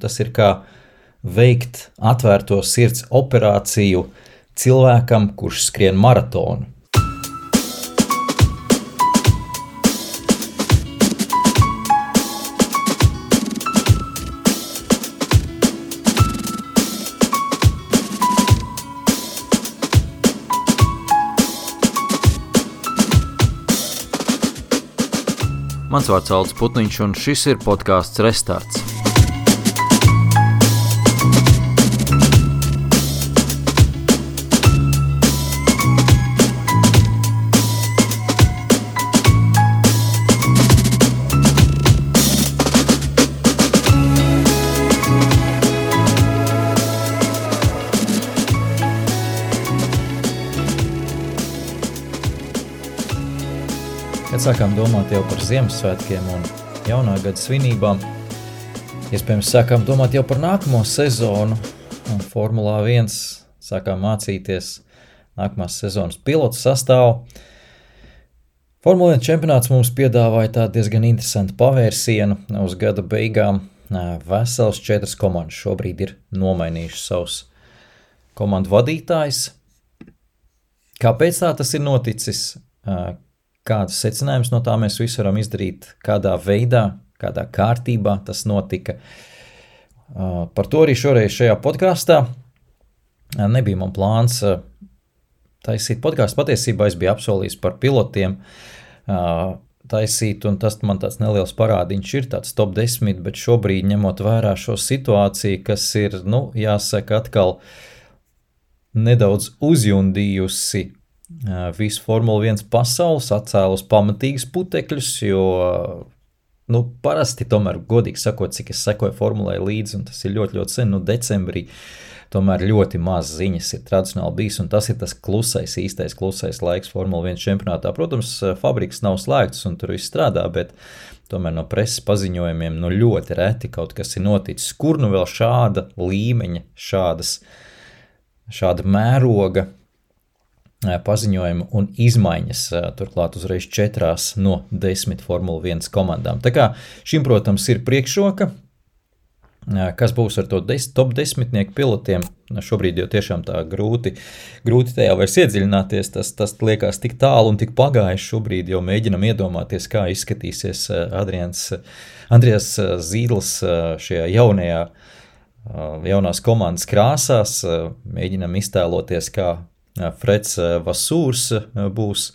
tas ir kā veikt atvērto sirds operāciju cilvēkam, kurš skrien maratonu. Mans vārds Aldis Putniņš, un šis ir podcasts Restarts. Kad sākām domāt jau par Ziemassvētkiem un jaunā gada svinībām, iespējams sākām domāt jau par nākamo sezonu, un Formulā 1 sākām mācīties nākamās sezonas pilotu sastāvu. Formula 1 čempionāts mums piedāvāja tādu diezgan interesantu pavērsienu uz gada beigām. Vesels 4 komandas šobrīd ir nomainījuši savus komandu vadītājus. Kāpēc tā tas ir noticis? Kādas secinājumus no tā mēs visi varam izdarīt, kādā veidā, kādā kārtībā tas notika. Par to arī šoreiz šajā podkāstā. Nebija man plāns taisīt podkāstu. Patiesībā es biju apsolījis par pilotiem taisīt, un tas man tāds neliels parādiņš ir, tāds top 10, bet šobrīd ņemot vērā šo situāciju, kas ir, jāsaka, atkal nedaudz uzjundījusi visu Formula 1 pasaules, atcēlus pamatīgas putekļus, jo, parasti tomēr, godīgi sakot, cik es sekoju Formulai līdzi, un tas ir ļoti, ļoti sen, decembrī, tomēr ļoti maz ziņas ir tradicionāli bijis, un tas ir tas īstais klusais laiks Formula 1 čempionātā. Protams, fabrikas nav slēgtas, un tur viss strādā, bet tomēr no preses paziņojumiem, ļoti reti kaut kas ir noticis. Kur vēl šāda līmeņa, šāda mēroga paziņojumu un izmaiņas, turklāt uzreiz 4 no 10 Formula 1 komandām. Tā kā šim, protams, ir priekšroka, kas būs ar to top 10 pilotiem. Šobrīd jau tiešām tā grūti tajā vairs iedziļināties, tas liekas tik tālu un tik pagājis. Šobrīd jau mēģinam iedomāties, kā izskatīsies Andrijas Zīdls šajā jaunās komandas krāsās. Mēģinam iztēloties, kā Freds Vasūrs būs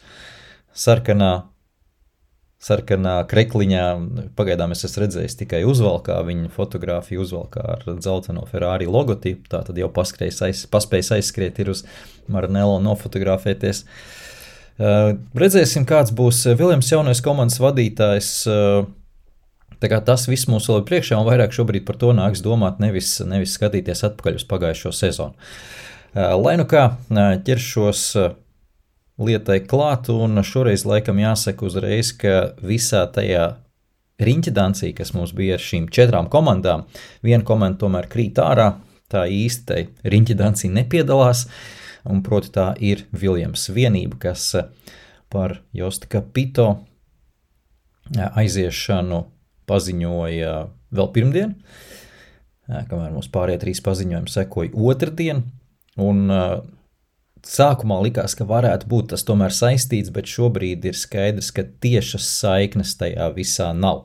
sarkanā krekliņā. Pagaidām es esmu redzējis tikai uzvalkā, viņa fotogrāfiju uzvalkā ar dzelteno Ferrari logotipu, tā tad jau paspējis aizskriet ir uz Maranello nofotografēties. Redzēsim, kāds būs Viljams jaunais komandas vadītājs. Tā kā tas viss mums vēl ir priekšā, un vairāk šobrīd par to nāks domāt, nevis skatīties atpakaļ uz pagājušo sezonu. Lai kā ķeršos lietai klāt, un šoreiz laikam jāsaka uzreiz, ka visā tajā riņķedancī, kas mums bija ar šīm 4 komandām, viena komanda tomēr krīt ārā, tā īsti tai riņķedancī nepiedalās, un proti tā ir Viljams vienība, kas par Josta Capito aiziešanu paziņoja vēl pirmdien, kamēr mums pārējie 3 paziņojumi sekoja otrdien. Un sākumā likās, ka varētu būt tas tomēr saistīts, bet šobrīd ir skaidrs, ka tiešas saiknes tajā visā nav.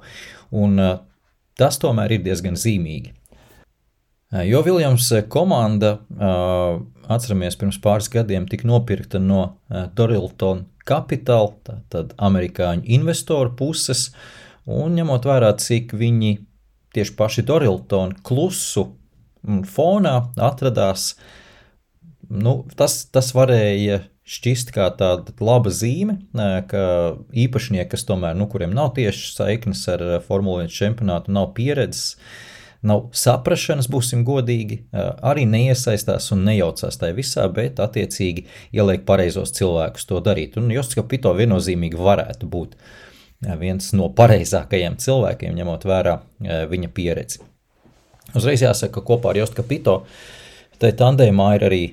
Un tas tomēr ir diezgan zīmīgi. Jo Viljams komanda, atceramies, pirms pāris gadiem tika nopirkta no Dorilton Capital, tātad amerikāņu investoru puses, un ņemot vērā, cik viņi tieši paši Dorilton klusu fonā atradās, tas varēja šķist kā tāda laba zīme, ka īpašnieki, kas tomēr, kuriem nav tieši saiknes ar Formula 1 čempionātu, nav pieredzes, nav saprašanas, būsim godīgi, arī neiesaistās un nejaucās tajā visā, bet attiecīgi ieliek pareizos cilvēkus to darīt. Un Josta Capito viennozīmīgi varētu būt viens no pareizākajiem cilvēkiem, ņemot vērā viņa pieredzi. Uzreiz jāsaka, ka kopā ar Josta Capito tai tandēmā ir arī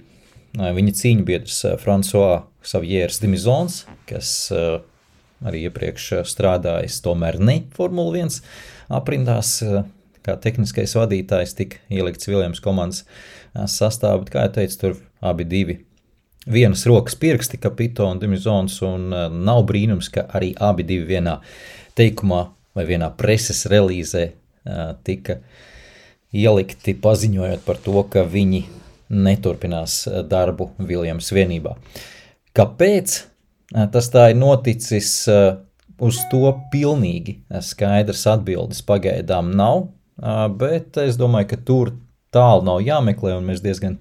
viņa cīņbiedrs François Xaviers Dimizons, kas arī iepriekš strādājis tomēr ne Formula 1 aprindās, kā tehniskais vadītājs tika ielikts Williams komandas sastāvā, bet, kā jau teicu, tur abi divi vienas rokas pirksti, Capito un Demizones, un nav brīnums, ka arī abi divi vienā teikumā vai vienā preses relīzē tika ielikti, paziņojot par to, ka viņi neturpinās darbu Williams vienībā. Kāpēc tas tā ir noticis, uz to pilnīgi skaidrs atbildes pagaidām nav, bet es domāju, ka tur tālu nav jāmeklē, un mēs diezgan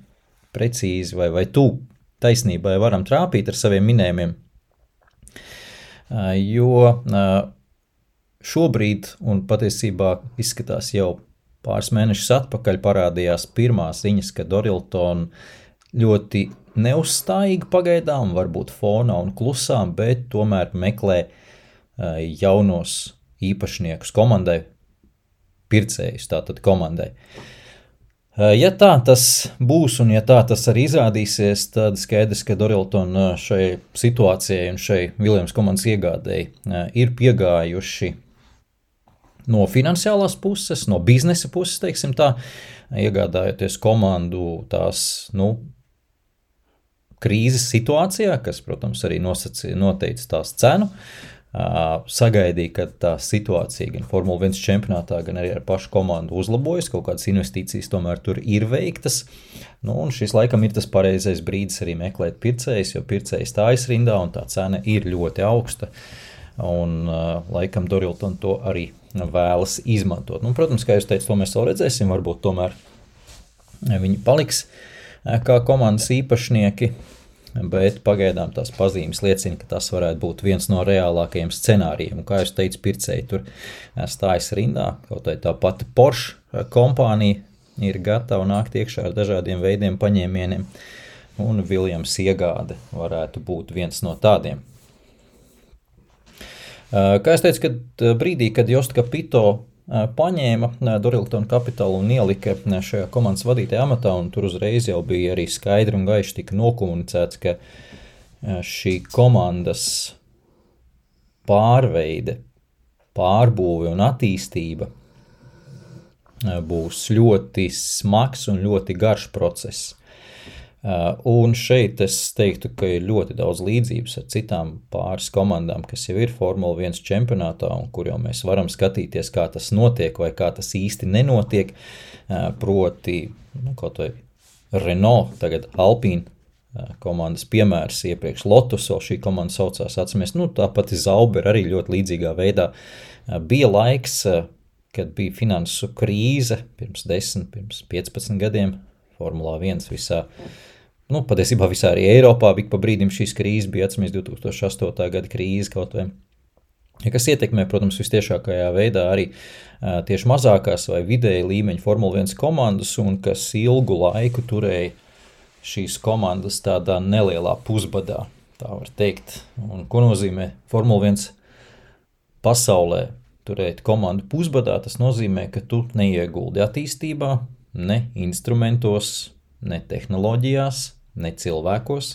precīzi vai tu taisnībai varam trāpīt ar saviem minējumiem, jo šobrīd, un patiesībā izskatās jau pāris mēnešus atpakaļ, parādījās pirmās ziņas, ka Dorilton ļoti neuzstājīgi pagaidām, varbūt fonā un klusām, bet tomēr meklē jaunos īpašniekus komandai, pircējus tātad komandai. Ja tā tas būs un ja tā tas arī izrādīsies, tad skaidrs, ka Dorilton šai situācijai un šai Williams komandas iegādēji ir piegājuši no finansiālās puses, no biznesa puses, teiksim tā, iegādājoties komandu tās, krīzes situācijā, kas, protams, arī noteica tās cenu, sagaidīja, ka tā situācija gan Formula 1 čempionātā, gan arī ar pašu komandu uzlabojas, kaut kādas investīcijas tomēr tur ir veiktas, un šis laikam ir tas pareizais brīdis arī meklēt pircējus, jo pircējs stājas rindā un tā cena ir ļoti augsta, un laikam Dorilton to arī vēlas izmantot. Protams, kā jūs teicu, to mēs vēl redzēsim, varbūt tomēr viņi paliks kā komandas īpašnieki, bet pagaidām tās pazīmes liecina, ka tas varētu būt viens no reālākajiem scenārijiem. Un, kā jūs teicu, pircēji tur stājas rindā, kaut tā pati Porsche kompānija ir gatava nākt iekšā ar dažādiem veidiem paņēmieniem, un Williams iegāde varētu būt viens no tādiem. Kā es teicu, kad brīdī, kad Jost Capito paņēma Dorilton kapitālu un ielika šajā komandas vadītāja amatā, un tur uzreiz jau bija arī skaidri un gaiši tika nokomunicēts, ka šī komandas pārveide, pārbūve un attīstība būs ļoti smags un ļoti garš process. Un šeit es teiktu, ka ir ļoti daudz līdzības ar citām pāris komandām, kas jau ir Formula 1 čempionātā un kur jau mēs varam skatīties, kā tas notiek vai kā tas īsti nenotiek, proti, kaut vai Renault, tagad Alpine komandas piemērs, iepriekš Lotus, vēl šī komanda saucās, atceramies, tāpat Zauber arī ļoti līdzīgā veidā. Bija laiks, kad bija finansu krīze pirms 10, pirms 15 gadiem, Formulā 1 visā, patiesībā visā arī Eiropā, bija pa brīdim šīs krīzes, bija atceramies 2008. Gada krīze kaut vai, kas ietekmē, protams, vistiešākajā veidā arī tieši mazākās vai vidēji līmeņa Formula 1 komandas, un kas ilgu laiku turēja šīs komandas tādā nelielā pusbadā, tā var teikt. Un ko nozīmē Formula 1 pasaulē turēt komandu pusbadā? Tas nozīmē, ka tu neieguldi attīstībā, ne instrumentos, ne tehnoloģijās, ne cilvēkos.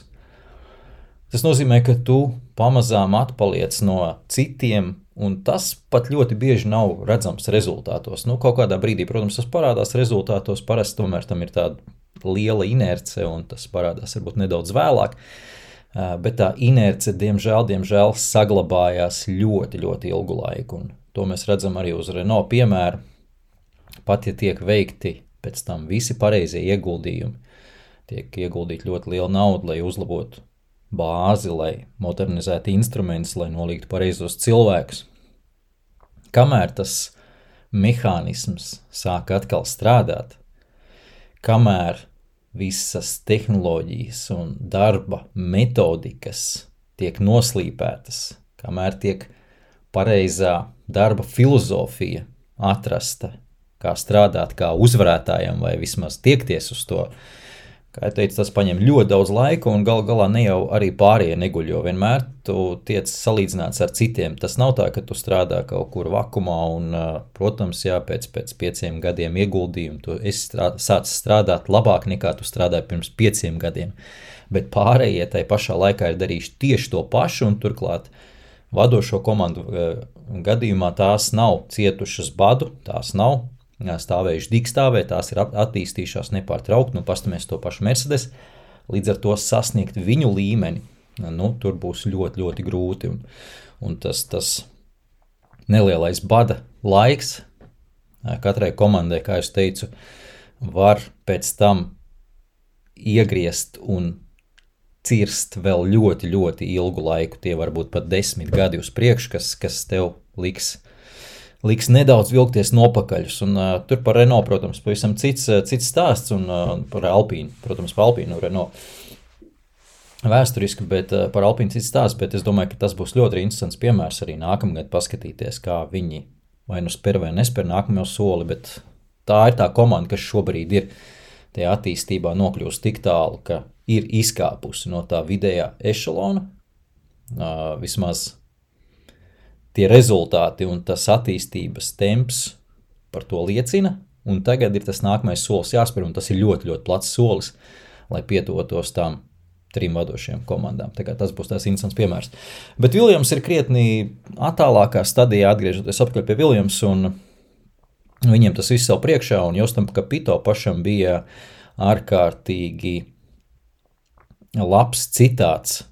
Tas nozīmē, ka tu pamazām atpaliec no citiem, un tas pat ļoti bieži nav redzams rezultātos. Kaut kādā brīdī, protams, tas parādās rezultātos, parasti tomēr tam ir tāda liela inerce, un tas parādās varbūt nedaudz vēlāk, bet tā inerce, diemžēl saglabājās ļoti, ļoti ilgu laiku, un to mēs redzam arī uz Renault piemēru. Pat, ja tiek veikti pēc tam visi pareizie ieguldījumi, tiek ieguldīt ļoti liela nauda, lai uzlabotu bāzi, lai modernizētu instrumentus, lai nolīgtu pareizos cilvēkus. Kamēr tas mehānisms sāk atkal strādāt, kamēr visas tehnoloģijas un darba metodikas tiek noslīpētas, kamēr tiek pareizā darba filozofija atrasta, kā strādāt kā uzvarētājam vai vismaz tiekties uz to. Kā jau teicu, tas paņem ļoti daudz laika un gal galā ne jau arī pārējie neguļ, jo vienmēr tu tiec salīdzināts ar citiem. Tas nav tā, ka tu strādā kaut kur vakumā un, protams, pēc 5 gadiem ieguldījumu tu esi sācis strādāt labāk nekā tu strādāji pirms 5 gadiem. Bet pārējie tai pašā laikā ir darījuši tieši to pašu un turklāt vadošo komandu gadījumā tās nav cietušas badu, tās nav stāvējuši digstāvē, tās ir attīstījušās nepārtraukti, pastamies to pašu Mercedes, līdz ar to sasniegt viņu līmeni, tur būs ļoti, ļoti grūti, un tas nelielais bada laiks katrai komandai, kā es teicu, var pēc tam iegriezt un cirst vēl ļoti, ļoti ilgu laiku. Tie var būt pat 10 gadi uz priekšu, kas tev liks nedaudz vilkties nopakaļus. Un tur par Renault, protams, pavisam cits stāsts, un par Alpīnu, protams, par Alpīnu Renault vēsturiski, bet par Alpīnu cits stāsts, bet es domāju, ka tas būs ļoti interesants piemērs arī nākamgad paskatīties, kā viņi vai nu spēr vai nespēr nākamo soli, bet tā ir tā komanda, kas šobrīd ir tajā attīstībā nokļūst tik tālu, ka ir izkāpusi no tā vidējā ešalona, vismaz tie rezultāti un tas attīstības temps par to liecina, un tagad ir tas nākamais solis jāspēr, un tas ir ļoti, ļoti plats solis, lai pietuvotos tām 3 vadošajām komandām. Tā kā tas būs tās interesants piemērs. Bet Williams ir krietni attālākā stadijā, atgriežoties atpakaļ pie Williams, un viņiem tas viss savu priekšā, un Jostam Kapito pašam bija ārkārtīgi labs citāts.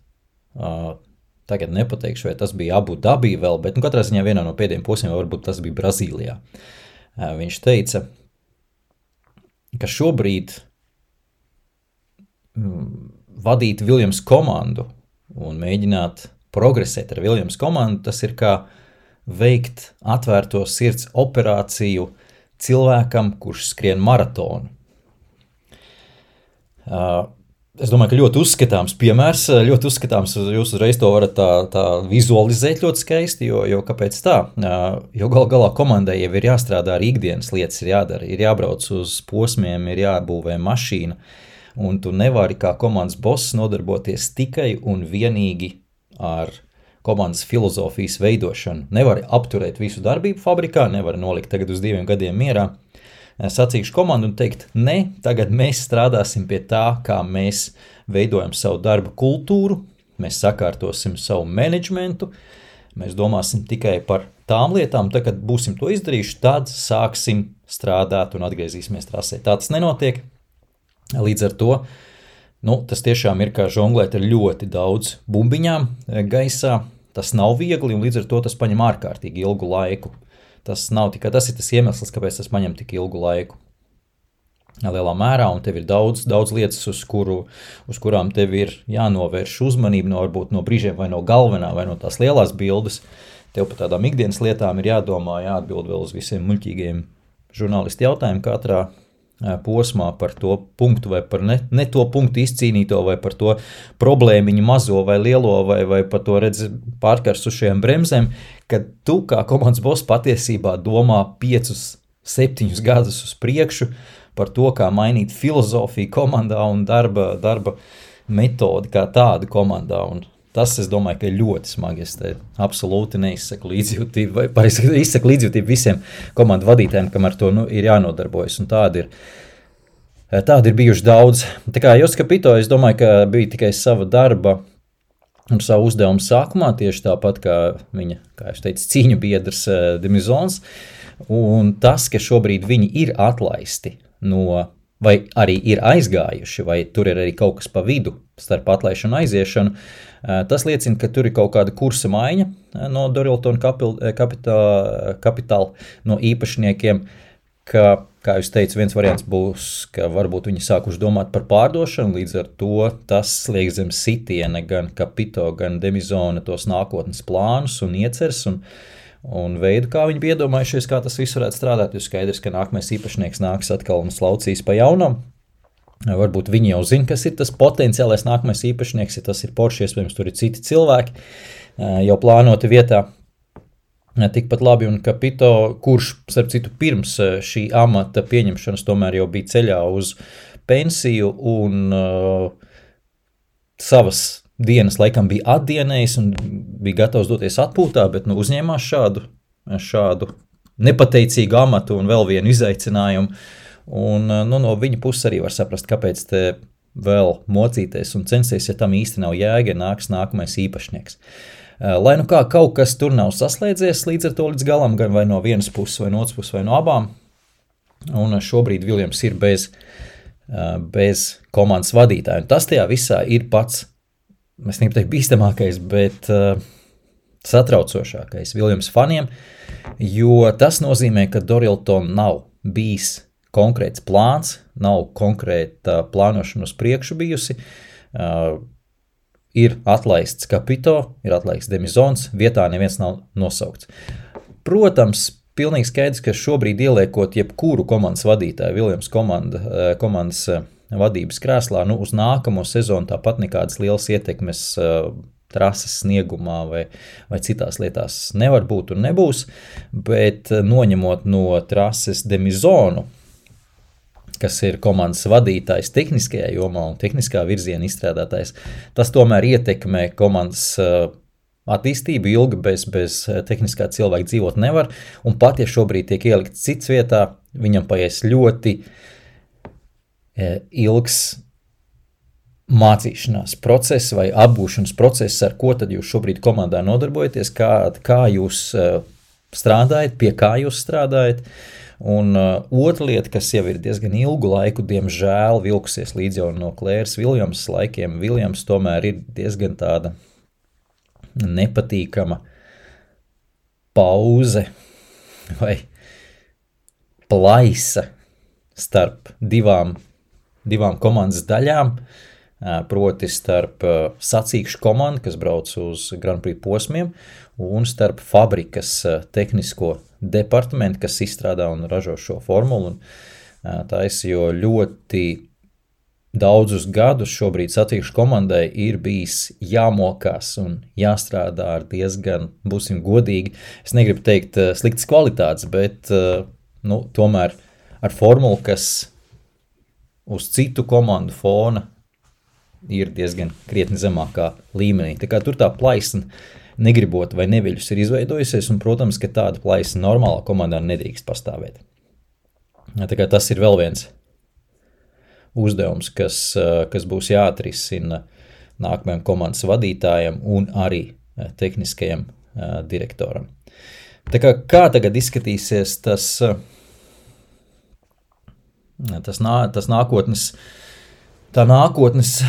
Tagad nepateikšu, vai tas bija Abu Dabī vēl, bet katrā ziņā vienā no pēdējiem posmiem, varbūt tas bija Brazīlijā. Viņš teica, ka šobrīd vadīt Williams komandu un mēģināt progresēt ar Williams komandu, tas ir kā veikt atvērto sirds operāciju cilvēkam, kurš skrien maratonu. Es domāju, ka ļoti uzskatāms piemērs, ļoti uzskatāms, jūs uzreiz to varat tā vizualizēt ļoti skaisti, jo kāpēc tā? Jo galā komandai jau ir jāstrādā ar ikdienas lietas, ir jādara, ir jābrauc uz posmiem, ir jābūvē mašīna, un tu nevari kā komandas boss nodarboties tikai un vienīgi ar komandas filozofijas veidošanu. Nevari apturēt visu darbību fabrikā, nevari nolikt tagad uz 2 gadiem mierā, sacīkšu komandu un teikt, ne, tagad mēs strādāsim pie tā, kā mēs veidojam savu darba kultūru, mēs sakārtosim savu menedžmentu, mēs domāsim tikai par tām lietām, tad, kad būsim to izdarījuši, tad sāksim strādāt un atgriezīsimies trasē. Tā tas nenotiek, līdz ar to, tas tiešām ir kā žonglēt ar ļoti daudz bumbiņām gaisā, tas nav viegli un līdz ar to tas paņem ārkārtīgi ilgu laiku. Tas ir tas iemesls, kāpēc tas paņem tik ilgu laiku. Lielā mērā, un tev ir daudz lietas, uz kurām tev ir jānovērš uzmanība, varbūt no brīžiem vai no galvenā, vai no tās lielās bildes. Tev par tādām ikdienas lietām ir jādomā, jāatbild vēl uz visiem muļķīgiem žurnālisti jautājumiem katrā posmā par to punktu vai par ne to punktu izcīnīto vai par to problēmiņu mazo vai lielo vai par to pārkarsušajām bremzēm, kad tu kā komandas boss patiesībā domā 5-7 gadus uz priekšu par to, kā mainīt filozofiju komandā un darba metodi kā tādu komandā. Un tas, es domāju, ka ir ļoti smagi. Es te absolūti neizsaku līdzjūtību, vai pareizi izsaku līdzjūtību visiem komandu vadītājiem, kam ar to ir jānodarbojas. Un tādi ir bijuši daudz. Tā kā Josts Kapito, es domāju, ka bija tikai sava darba un savu uzdevumu sākumā, tieši tāpat kā viņa, kā es teicu, cīņu biedrs Demizons. Un tas, ka šobrīd viņi ir atlaisti vai arī ir aizgājuši, vai tur ir arī kaut kas pa vidu starp atlaišanu un aiziešanu, tas liecina, ka tur ir kaut kāda kursa maiņa no Dorilton Capital, no īpašniekiem, ka, kā jūs teicu, viens variants būs, ka varbūt viņi sākuši domāt par pārdošanu, līdz ar to tas liek zem sitiena gan Kapito, gan Demizona tos nākotnes plānus un ieceres un veidu, kā viņi bija iedomājušies, kā tas viss varētu strādāt, jo skaidrs, ka nākamais īpašnieks nāks atkal un slaucīs pa jaunam. Varbūt viņi jau zina, kas ir tas potenciālais nākamais īpašnieks, ja tas ir Porsche, iespējams, tur ir citi cilvēki, jau plānoti vietā. Tikpat labi, un Kapito, kurš, starp citu, pirms šī amata pieņemšanas tomēr jau bija ceļā uz pensiju un savas dienas laikam bija atdienējis un bija gatavs doties atpūtā, bet uzņēmās šādu nepateicīgu amatu un vēl vienu izaicinājumu. Un no viņa puses arī var saprast, kāpēc te vēl mocīties un censties, ja tam īsti nav jēga, nāks nākamais īpašnieks. Lai kā kaut kas tur nav saslēdzies līdz ar to līdz galam, gan vai no vienas puses, vai no otras puses, vai no abām, un šobrīd Viljams ir bez komandas vadītāja. Un tas tajā visā ir pats, es negribu teikt bīstamākais, bet satraucošākais Viljams faniem, jo tas nozīmē, ka Dorilton nav bijis konkrēts plāns, nav konkrēta plānošana uz priekšu bijusi, ir atlaists Capito, ir atlaists Demizons, vietā neviens nav nosaukts. Protams, pilnīgi skaidrs, ka šobrīd ieliekot jebkuru komandas vadītāju, Viljams komandas vadības krēslā, uz nākamo sezonu tāpat nekādas lielas ietekmes trases sniegumā vai citās lietās nevar būt un nebūs, bet noņemot no trases Demizonu, kas ir komandas vadītājs tehniskajā jomā un tehniskā virziena izstrādātājs, tas tomēr ietekmē komandas attīstību ilgi bez tehniskā cilvēka dzīvot nevar, un pat ja šobrīd tiek ielikts cits vietā, viņam paies ļoti ilgs mācīšanās process vai apgūšanas process, ar ko tad jūs šobrīd komandā nodarbojaties, kā jūs strādājat, pie kā jūs strādājat. Un otra lieta, kas jau ir diezgan ilgu laiku, diemžēl vilkusies līdz jau no Klēras Viljams laikiem, Viljams tomēr ir diezgan tāda nepatīkama pauze vai plaisa starp divām komandas daļām, proti starp sacīkšu komandu, kas brauc uz Grand Prix posmiem, un starp fabrikas tehnisko departamentu, kas izstrādā un ražo šo formulu. Jo ļoti daudzus gadus šobrīd sacīkšu komandai ir bijis jāmokās un jāstrādā ar diezgan, būsim godīgi, es negribu teikt sliktas kvalitātes, bet tomēr ar formulu, kas uz citu komandu fona ir diezgan krietni zemākā līmenī. Tā kā tur tā plaisna negribot vai neviļus ir izveidojusies, un, protams, ka tāda plaisna normālā komandā nedrīkst pastāvēt. Tā kā tas ir vēl viens uzdevums, kas būs jāatrisina nākamajam komandas vadītājam un arī tehniskajam direktoram. Tā kā tagad izskatīsies tā nākotnes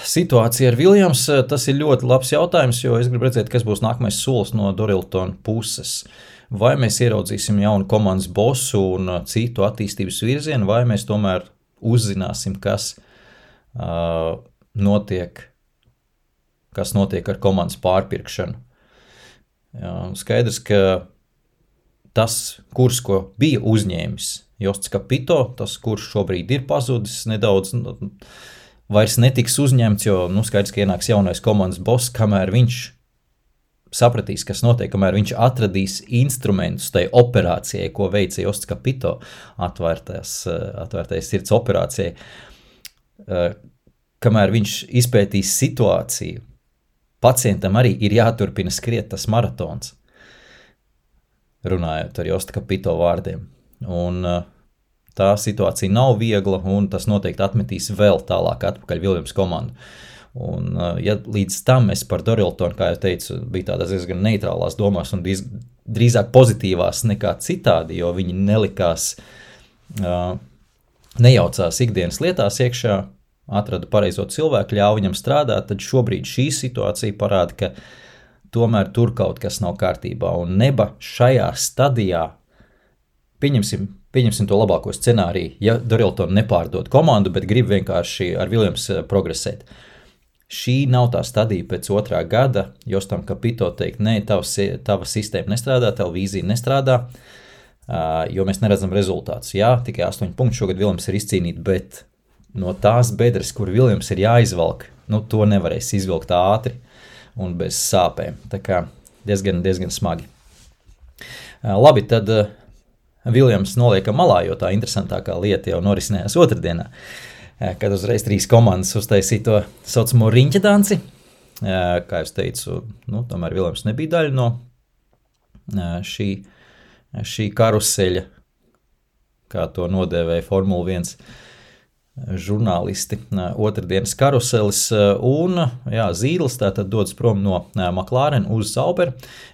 situācija ar Viljams, tas ir ļoti labs jautājums, jo es gribu redzēt, kas būs nākamais solis no Doriltona puses. Vai mēs ieraudzīsim jaunu komandas bosu un citu attīstības virzienu, vai mēs tomēr uzzināsim, kas notiek ar komandas pārpirkšanu. Skaidrs, ka tas kurs, ko bija uzņēmis Josts Capito, tas kurs šobrīd ir pazudis nedaudz, vairs netiks uzņemts, jo skaidrs, ka ienāks jaunais komandas boss, kamēr viņš sapratīs, kas notiek, kamēr viņš atradīs instrumentus tai operācijai, ko veica Josts Capito, atvērtais sirds operācijai, kamēr viņš izpētīs situāciju, pacientam arī ir jāturpina skriet tas maratons, runājot ar Josta Capito vārdiem. Un tā situācija nav viegla, un tas noteikti atmetīs vēl tālāk atpakaļ Viljams komandu. Un, ja līdz tam es par Doriltonu, kā jau teicu, bija tādās diezgan neitrālās domās un drīzāk pozitīvās nekā citādi, jo viņi nelikās, nejaucās ikdienas lietās iekšā, atrada pareizo cilvēku, ļauj viņam strādāt, tad šobrīd šī situācija parāda, ka tomēr tur kaut kas nav kārtībā. Un neba šajā stadijā, pieņemsim to labāko scenāriju, ja Dorilton nepārdod komandu, bet grib vienkārši ar Viljams progresēt. Šī nav tā stadija pēc 2. gada, Jostam Capito teikt, nē, tava sistēma nestrādā, tava vīzija nestrādā, jo mēs neredzam rezultātus. Jā, tikai 8 punkti šogad Viljams ir izcīnīt, bet no tās bedres, kur Viljams ir jāizvelk, to nevarēs izvilkt ātri un bez sāpēm. Tā kā diezgan smagi. Labi, tad Viljams noliekam malā, jo tā interesantākā lieta jau norisinājās otrdienā, kad uzreiz 3 komandas uztaisīja to saucamo riņķa danci. Kā es teicu, tomēr Viljams nebija daļa no šī karuseļa, kā to nodēvēja Formula 1 žurnālisti, otrdienas karuselis, un Zīdls tātad dodas prom no McLaren uz Sauber,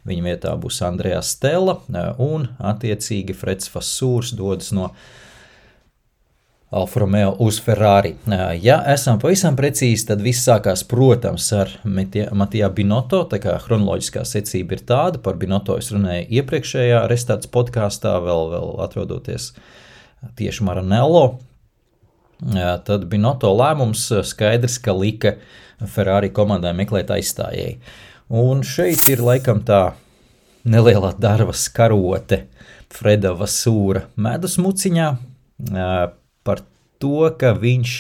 viņa vietā būs Andreas Stella, un attiecīgi Freds Vassūrs dodas no Alfa Romeo uz Ferrari. Ja esam pavisam precīzi, tad viss sākās, protams, ar Mattia Binotto, tā kā chronoloģiskā secība ir tāda, par Binotto es runēju iepriekšējā Restarts podkāstā, vēl atrodoties tieši Maranello. Tad Binotto lēmums skaidrs, ka lika Ferrari komandai meklēt aizstājēju. Un šeit ir laikam tā nelielā darba skarote Freda Vasūra medus muciņā, par to, ka viņš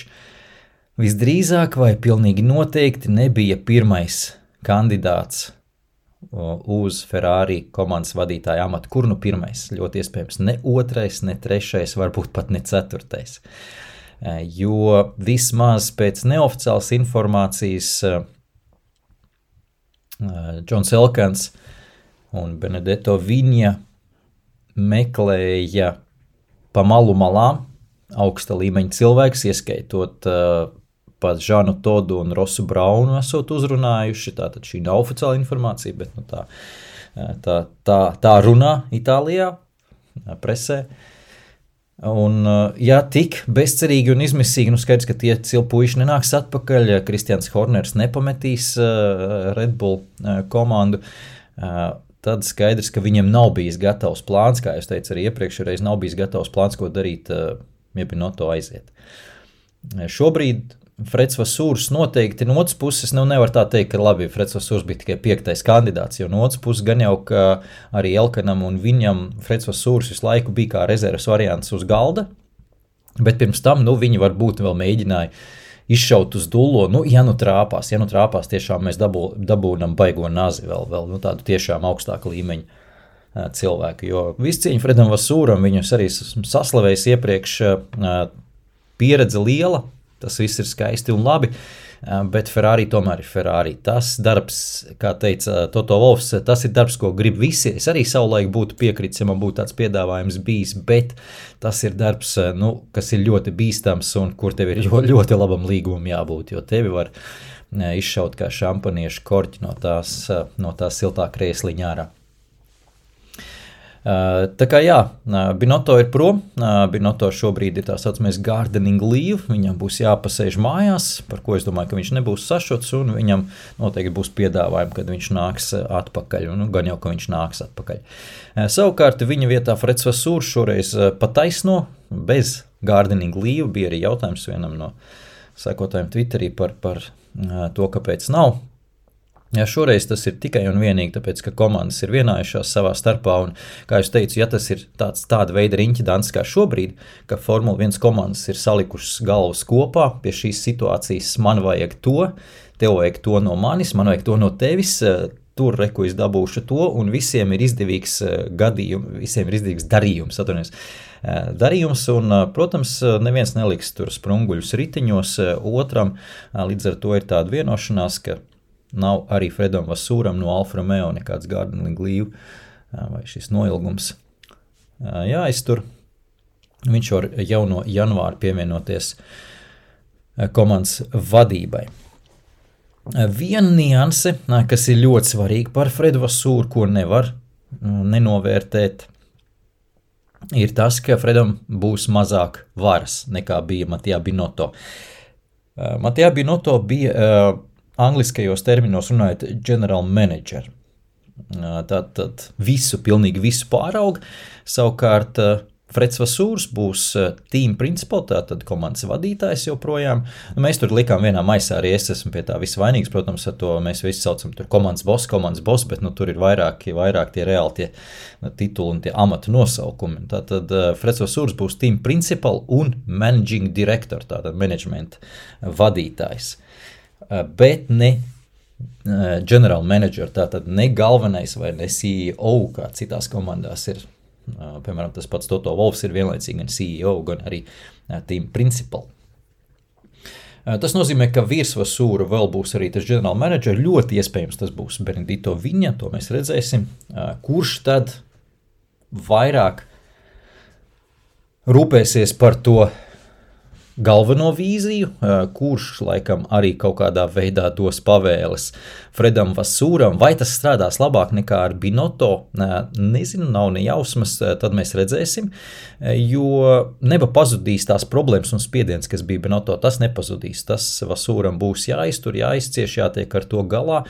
visdrīzāk vai pilnīgi noteikti nebija pirmais kandidāts uz Ferrari komandas vadītāja amatu. Kur nu pirmais? Ļoti iespējams ne otrais, ne trešais, varbūt pat ne ceturtais. Jo vismaz pēc neoficiālas informācijas Džons Elkans un Benedetto Viņa meklēja pa malu malām augsta līmeņa cilvēks, ieskaitot pat Žanu Todu un Rosu Braunu esot uzrunājuši, tātad šī nav oficiāla informācija, bet tā runā Itālijā, presē. Un, ja tik bezcerīgi un izmisīgi, skaidrs, ka tie cilpuiši nenāks atpakaļ, Kristians Horners nepametīs Red Bull komandu, tad skaidrs, ka viņam nav bijis gatavs plāns, kā es teicu arī iepriekšreiz, nav bijis gatavs plāns, ko darīt, ja Binotto aiziet. Šobrīd Freds Vasūrs noteikti no otras puses, nevar tā teikt, ka labi, Freds Vasūrs bija tikai 5. kandidāts, jo no otras puses gan jau, ka arī Elkanam un viņam Freds Vasūrs visu laiku bija kā rezerves variants uz galda, bet pirms tam, viņi varbūt vēl mēģināja izšaut uz dullo, ja trāpās, tiešām mēs dabūnam baigo nazi vēl tādu tiešām augstāku līmeņu cilvēku, jo viscieņa Fredam Vasūram, viņus arī saslavējis iepriekš, pieredze liela, tas viss ir skaisti un labi, bet Ferrari tomēr ir Ferrari. Tas darbs, kā teica Toto Wolffs, tas ir darbs, ko grib visi. Es arī savulaik būtu piekritis, ja man būtu tāds piedāvājums bijis, bet tas ir darbs, kas ir ļoti bīstams un kur tev ir ļoti labam līgumam jābūt, jo tevi var izšaut kā šampaniešu korķi no tās siltā krēsliņā ārā. Tā kā Binotto ir prom, Binotto šobrīd ir tā saucamais gardening leave, viņam būs jāpasēž mājās, par ko es domāju, ka viņš nebūs sašuts, un viņam noteikti būs piedāvājumi, kad viņš nāks atpakaļ, gan jau, ka viņš nāks atpakaļ. Savukārt viņa vietā Freds Vasūrs šoreiz pataisno, bez gardening leave, bija arī jautājums vienam no sekotājiem Twitterī par to, kāpēc nav. Šoreiz tas ir tikai un vienīgi, tāpēc, ka komandas ir vienājušās savā starpā, un, kā es teicu, ja tas ir tāda veida riņķidants kā šobrīd, ka Formula 1 komandas ir salikušas galvas kopā pie šīs situācijas, man vajag to, tev vajag to no manis, man vajag to no tevis, tur reku es dabūšu to, un visiem ir izdevīgs darījums, un, protams, neviens neliks tur sprunguļus riteņos otram, līdz ar to ir tāda vienošanās, ka nav arī Fredam Vasūram no Alfa Romeo nekāds gardening leave vai šis noilgums jāiztur. Viņš var jau no janvāra pievienoties komandas vadībai. Viena nianse, kas ir ļoti svarīga par Fredu Vasūru, ko nevar nenovērtēt, ir tas, ka Fredam būs mazāk varas nekā bija Mattia Binotto. Mattia Binotto bija angliskajos terminos runājot general manager. Tātad pilnīgi visu pāraug. Savukārt Freds Vasūrs būs team principal, tātad komandas vadītājs joprojām. Mēs tur likām vienā maisā, arī es esmu pie tā visvainīgs, protams, ar to mēs visi saucam tur komandas boss, bet tur ir vairāk tie reāli tie tituli un tie amatu nosaukumi. Tātad Freds Vasūrs būs team principal un managing director, tātad management vadītājs. Bet ne general manager, tātad ne galvenais vai ne CEO, kā citās komandās ir. Piemēram, tas pats Toto Wolffs ir vienlaicīgi gan CEO, gan arī team principal. Tas nozīmē, ka virs Vasūra vēl būs arī tas general manager, ļoti iespējams tas būs Benedetto Viņa, to mēs redzēsim, kurš tad vairāk rūpēsies par to galveno vīziju, kurš laikam arī kaut kādā veidā dos pavēles Fredam Vasūram. Vai tas strādās labāk nekā ar Binotto? Nezinu, nav nejausmas, tad mēs redzēsim, jo neba pazudīs tās problēmas un spiediens, kas bija Binotto, tas nepazudīs. Tas Vasūram būs jāiztur, jāizcieš, jātiek ar to galā.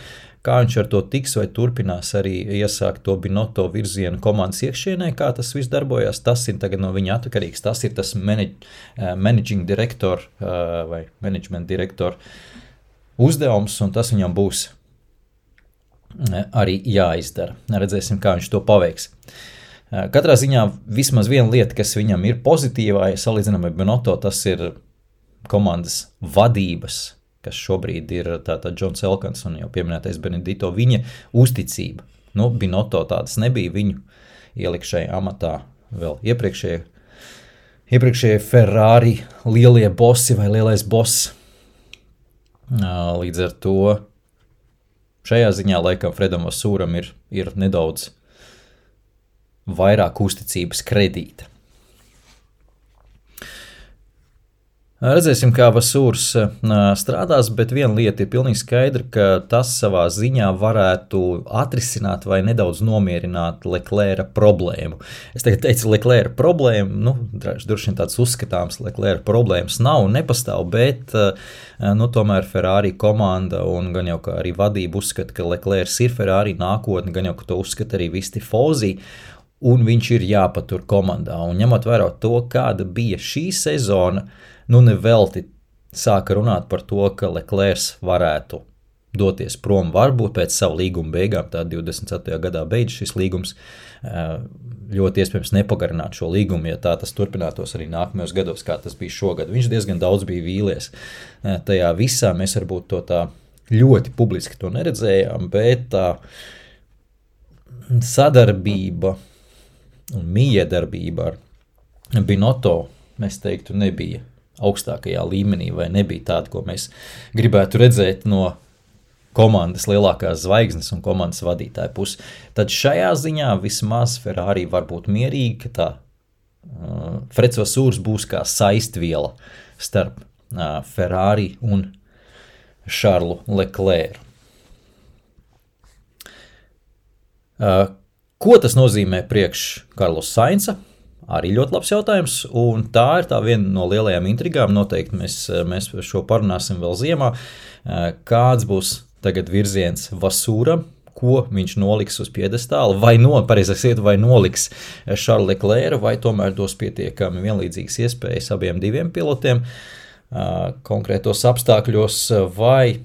Kā viņš ar to tiks vai turpinās arī iesākt to Binotto virzienu komandas iekšienē, kā tas viss darbojās, tas ir tagad no viņa atkarīgs. Tas ir tas managing director vai management director uzdevums, un tas viņam būs arī jāizdara. Redzēsim, kā viņš to paveiks. Katrā ziņā vismaz viena lieta, kas viņam ir pozitīvā, ja salīdzinām ar Binotto, tas ir komandas vadības, kas šobrīd ir tātad Džons Elkans un jau pieminētais Benedito, viņa uzticība. Binotto tādas nebija, viņu ielikšajā amatā vēl iepriekšējie Ferrari lielie bosi vai lielais boss. Līdz ar to šajā ziņā laikam Fredam Vasūram ir nedaudz vairāk uzticības kredīta. Redzēsim, kā Vasūrs strādās, bet viena lieta ir pilnīgi skaidra, ka tas savā ziņā varētu atrisināt vai nedaudz nomierināt Leclerca problēmu. Es tagad teicu Leclerca problēmu, droši vien tāds uzskatāms Leclerca problēmas nav un nepastāv, bet tomēr Ferrari komanda un gan jau kā arī vadība uzskata, ka Leclercs ir Ferrari nākotne, gan jau ka to uzskata arī visi Tifosi, un viņš ir jāpatur komandā. Un ņemot vērā to, kāda bija šī sezona, nevelti sāka runāt par to, ka Leclercs varētu doties prom, varbūt pēc savu līguma beigām, tā 24. gadā beidz šis līgums, ļoti iespējams nepagarināt šo līgumu, ja tā tas turpinātos arī nākamajos gados, kā tas bija šogad. Viņš diezgan daudz bija vīlies tajā visā, mēs varbūt to tā ļoti publiski to neredzējām, bet tā sadarbība un miedarbība ar Binotto, mēs teiktu, nebija augstākajā līmenī vai nebija tāda, ko mēs gribētu redzēt no komandas lielākās zvaigznes un komandas vadītāja puses. Tad šajā ziņā vismaz Ferrari var būt mierīgi, ka tā Freds Vasūrs būs kā saistviela starp Ferrari un Šarlu Leclercu. Ko tas nozīmē priekš Karlosa Sainza? Arī ļoti labs jautājums, un tā ir tā viena no lielajām intrigām. Noteikti mēs šo parunāsim vēl ziemā. Kāds būs tagad virziens Vasūram, ko viņš noliks uz piedestāla, vai noliks Šarlu Leclercu, vai tomēr dos pietiekami vienlīdzīgas iespējas abiem diviem pilotiem konkrētos apstākļos, vai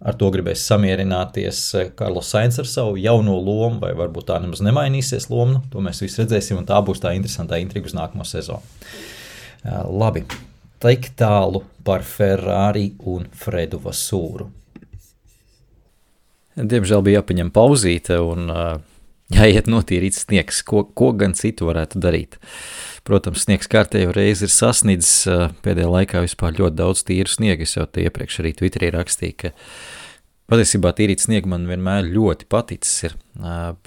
ar to gribēs samierināties Karlos Sainz ar savu jauno lomu, vai varbūt tā nemaz nemainīsies loma. To mēs visi redzēsim, un tā būs tā interesantā intriga uz nākamo sezonu. Labi, tik tālu par Ferrari un Fredu Vasūru. Diemžēl bija jāpaņem pauzīte un jāiet notīrīt sniegs, ko gan citu varētu darīt. Protams, sniegs kārtējo reizi ir sasniedzis pēdējā laikā vispār ļoti daudz tīru sniegu. Es jau te iepriekš arī Twitterī rakstīju, ka patiesībā tīrīt sniegu man vienmēr ļoti paticis ir,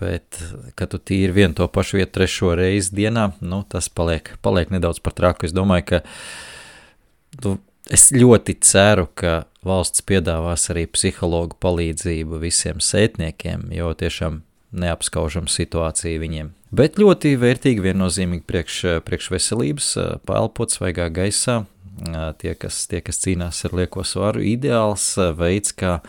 bet, kad tu tīri vienu to pašu vietu trešo reizi dienā, tas paliek nedaudz par traku. Es domāju, ka es ļoti ceru, ka valsts piedāvās arī psihologu palīdzību visiem sētniekiem, jo tiešām neapskaužam situāciju viņiem. Bet ļoti vērtīgi viennozīmīgi priekš veselības, paelpot svaigā gaisā, tie, kas cīnās ar lieko svaru, ideāls veids, kā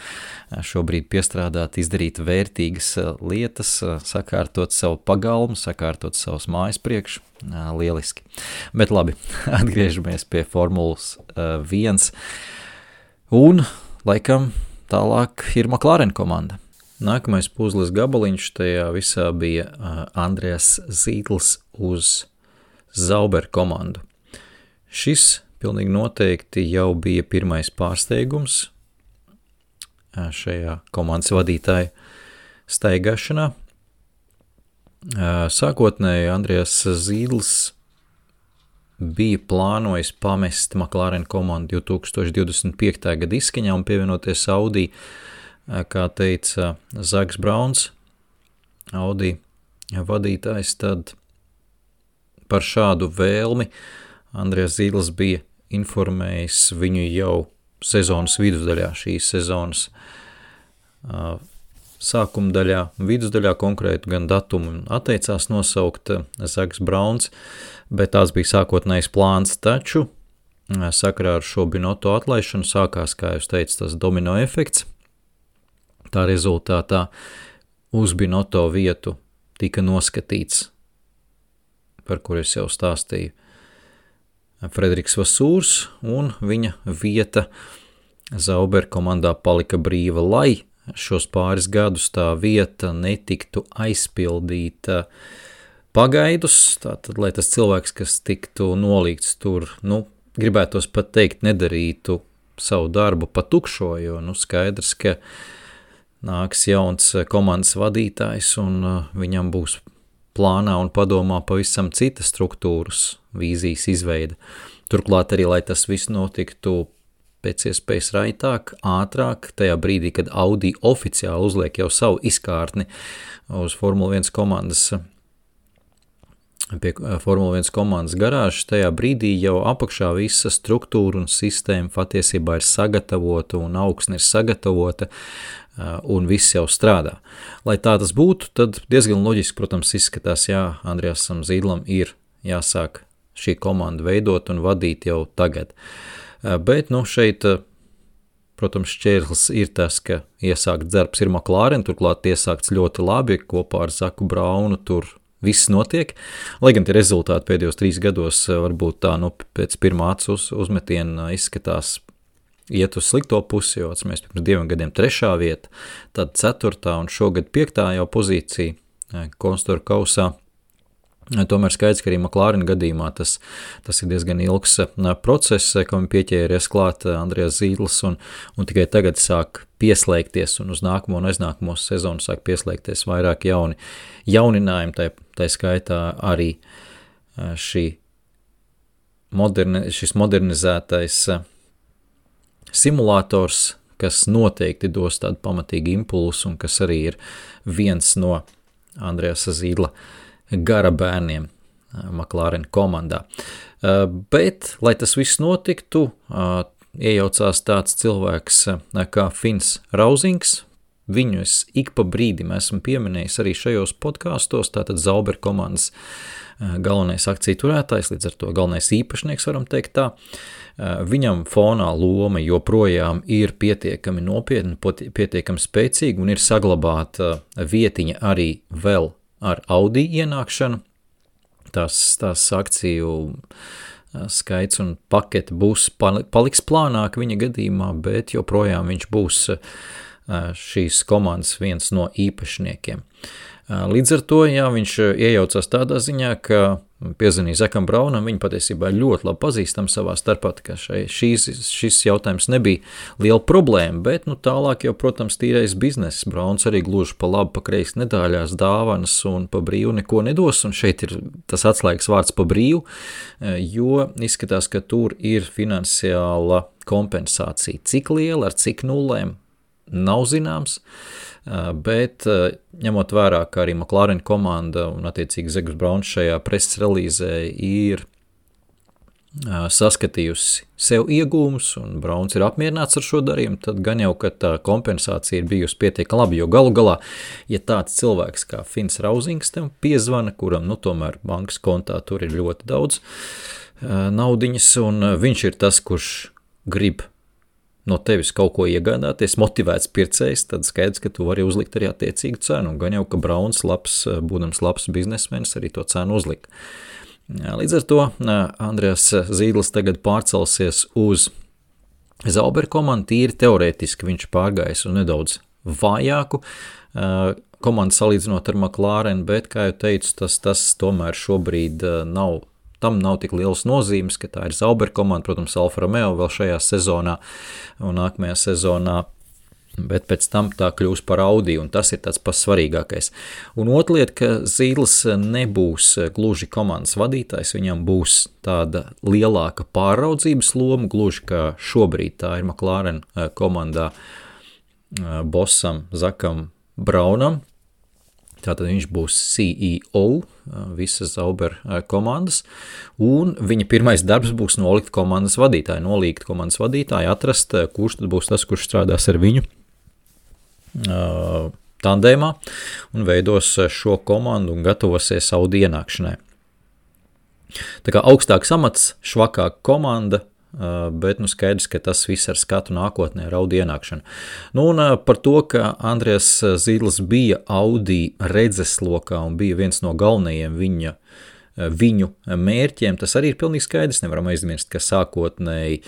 šobrīd piestrādāt, izdarīt vērtīgas lietas, sakārtot savu pagalmu, sakārtot savus mājas priekš, lieliski. Bet labi, atgriežamies pie Formulas 1, un laikam tālāk ir McLaren komanda. Nākamais puzles gabaliņš tajā visā bija Andreas Zītls uz Sauber komandu. Šis pilnīgi noteikti jau bija pirmais pārsteigums šajā komandas vadītāja staigāšanā. Sākotnēji Andreas Zītls bija plānojis pamest McLaren komandu 2025. gada izskaņā un pievienoties Audi, kā teica Zaks Brauns, Audi vadītājs, tad par šādu vēlmi Andrejs Zīdlis bija informējis viņu jau sezonas vidusdaļā, šīs sezonas sākuma daļā, vidusdaļā konkrētu gan datumu atteicās nosaukt Zaks Brauns, bet tās bija sākotnējs plāns, taču sakarā ar šo Binotto atlaišanu sākās, kā jūs teicu, tas domino efekts. Tā rezultātā uz Binotto vietu tika noskatīts, par kur es jau stāstīju, Frederiks Vasūrs, un viņa vieta Zauber komandā palika brīva, lai šos pāris gadus tā vieta netiktu aizpildīta pagaidus, tātad, lai tas cilvēks, kas tiktu nolīgts tur, gribētos pat teikt, nedarītu savu darbu pa tukšo, jo, skaidrs, ka nāks jauns komandas vadītājs, un viņam būs plānā un padomā pavisam citas struktūras, vīzijas izveida. Turklāt arī, lai tas viss notiktu pēc iespējas raitāk, ātrāk, tajā brīdī, kad Audi oficiāli uzliek jau savu izkārtni uz Formula 1 komandas, pie Formula 1 komandas garāžas, tajā brīdī jau apakšā visa struktūra un sistēma patiesībā ir sagatavota un augsne ir sagatavota, un viss jau strādā. Lai tā tas būtu, tad diezgan loģiski, protams, izskatās, Andrejasam Zīdlam ir jāsāk šī komanda veidot un vadīt jau tagad. Bet, šeit, protams, šķērslis ir tas, ka iesākt darbs ir McLaren, turklāt iesākts ļoti labi, kopā ar Zaku Braunu tur viss notiek, lai gan tie rezultāti pēdējos 3 gados varbūt tā, pēc pirmā acu uzmetiena izskatās iet uz slikto pusi, jo mēs pirms 2 gadiem 3. vieta, tad 4. un šogad 5. jau pozīcija konstruktūra kausā. Tomēr skaidrs, ka arī McLaren gadījumā tas ir diezgan ilgs process, kam pieķēries klāt Andrejs Zīdlis un tikai tagad sāk pieslēgties un uz nākamo un aiznākamo sezonu sāk pieslēgties vairāk jauninājumi, tai skaitā arī šis modernizētais simulators, kas noteikti dos tādu pamatīgu impulsu un kas arī ir viens no Andrejasa Zīdla gara bērniem McLaren komandā. Bet, lai tas viss notiktu, iejaucās tāds cilvēks kā Fins Rausings. Viņu es ik pa brīdim esmu pieminējis arī šajos podkastos, tātad Zauber komandas galvenais akciju turētājs, līdz ar to galvenais īpašnieks, varam teikt tā. Viņam fonā loma joprojām ir pietiekami nopietna, pietiekami spēcīga un ir saglabāta vietiņa arī vēl ar Audi ienākšanu. Tās akciju skaits un pakete paliks plānāk viņa gadījumā, bet joprojām viņš būs šīs komandas viens no īpašniekiem. Līdz ar to, viņš iejaucās tādā ziņā, ka piezvanīja Zakam Braunam, viņi patiesībā ļoti labi pazīstam savā starpā, ka šis jautājums nebija liela problēma, bet tālāk jau, protams, tīrais bizness. Brauns arī gluži pa labi, pa kreisi nedāļās dāvanas un pa brīvu neko nedos, un šeit ir tas atslēgas vārds pa brīvu, jo izskatās, ka tur ir finansiāla kompensācija. Cik liela, ar cik nulēm, nav zināms, bet ņemot vērā, ka arī McLaren komanda un attiecīgi Zaks Brauns šajā preses relīzē ir saskatījusi sev iegūmus un Brauns ir apmierināts ar šo darījumu, tad gan jau, ka tā kompensācija ir bijusi pietiekami labi, jo galu galā, ja tāds cilvēks kā Fins Rausings tev piezvana, kuram tomēr bankas kontā tur ir ļoti daudz naudiņas, un viņš ir tas, kurš grib no tevis kaut ko iegādāties, motivēts pircējs, tad skaidrs, ka tu vari uzlikt arī attiecīgu cenu. Gan jau, ka Brauns, būdams labs biznesmenis, arī to cenu uzlika. Līdz ar to Andrejs Zīdlis tagad pārcelsies uz Zauber komandu, tīri teorētiski viņš pārgājis un nedaudz vājāku komandu salīdzinot ar McLaren, bet, kā jau teicu, tas tomēr šobrīd tam nav tik liels nozīmes, ka tā ir Zauber komanda, protams, Alfa Romeo vēl šajā sezonā un nākamajā sezonā, bet pēc tam tā kļūs par Audi, un tas ir tāds pats svarīgākais. Un otra lieta, ka Zīdlis nebūs gluži komandas vadītājs, viņam būs tāda lielāka pāraudzības loma, gluži kā šobrīd tā ir McLaren komandā bossam Zakam Braunam. Tātad viņš būs CEO visas Zauber komandas, un viņa pirmais darbs būs nolikt komandas vadītāju, atrast, kurš tad būs tas, kurš strādās ar viņu tandēmā un veidos šo komandu un gatavosies Audi ienākšanai. Tā kā augstāks amats, švakāka komanda, bet skaidrs, ka tas viss ar skatu nākotnē ar Audi ienākšanu. Un par to, ka Andrijas Zīdls bija Audi redzeslokā un bija viens no galvenajiem viņu mērķiem, tas arī ir pilnīgi skaidrs. Nevaram aizmirst, ka sākotnēji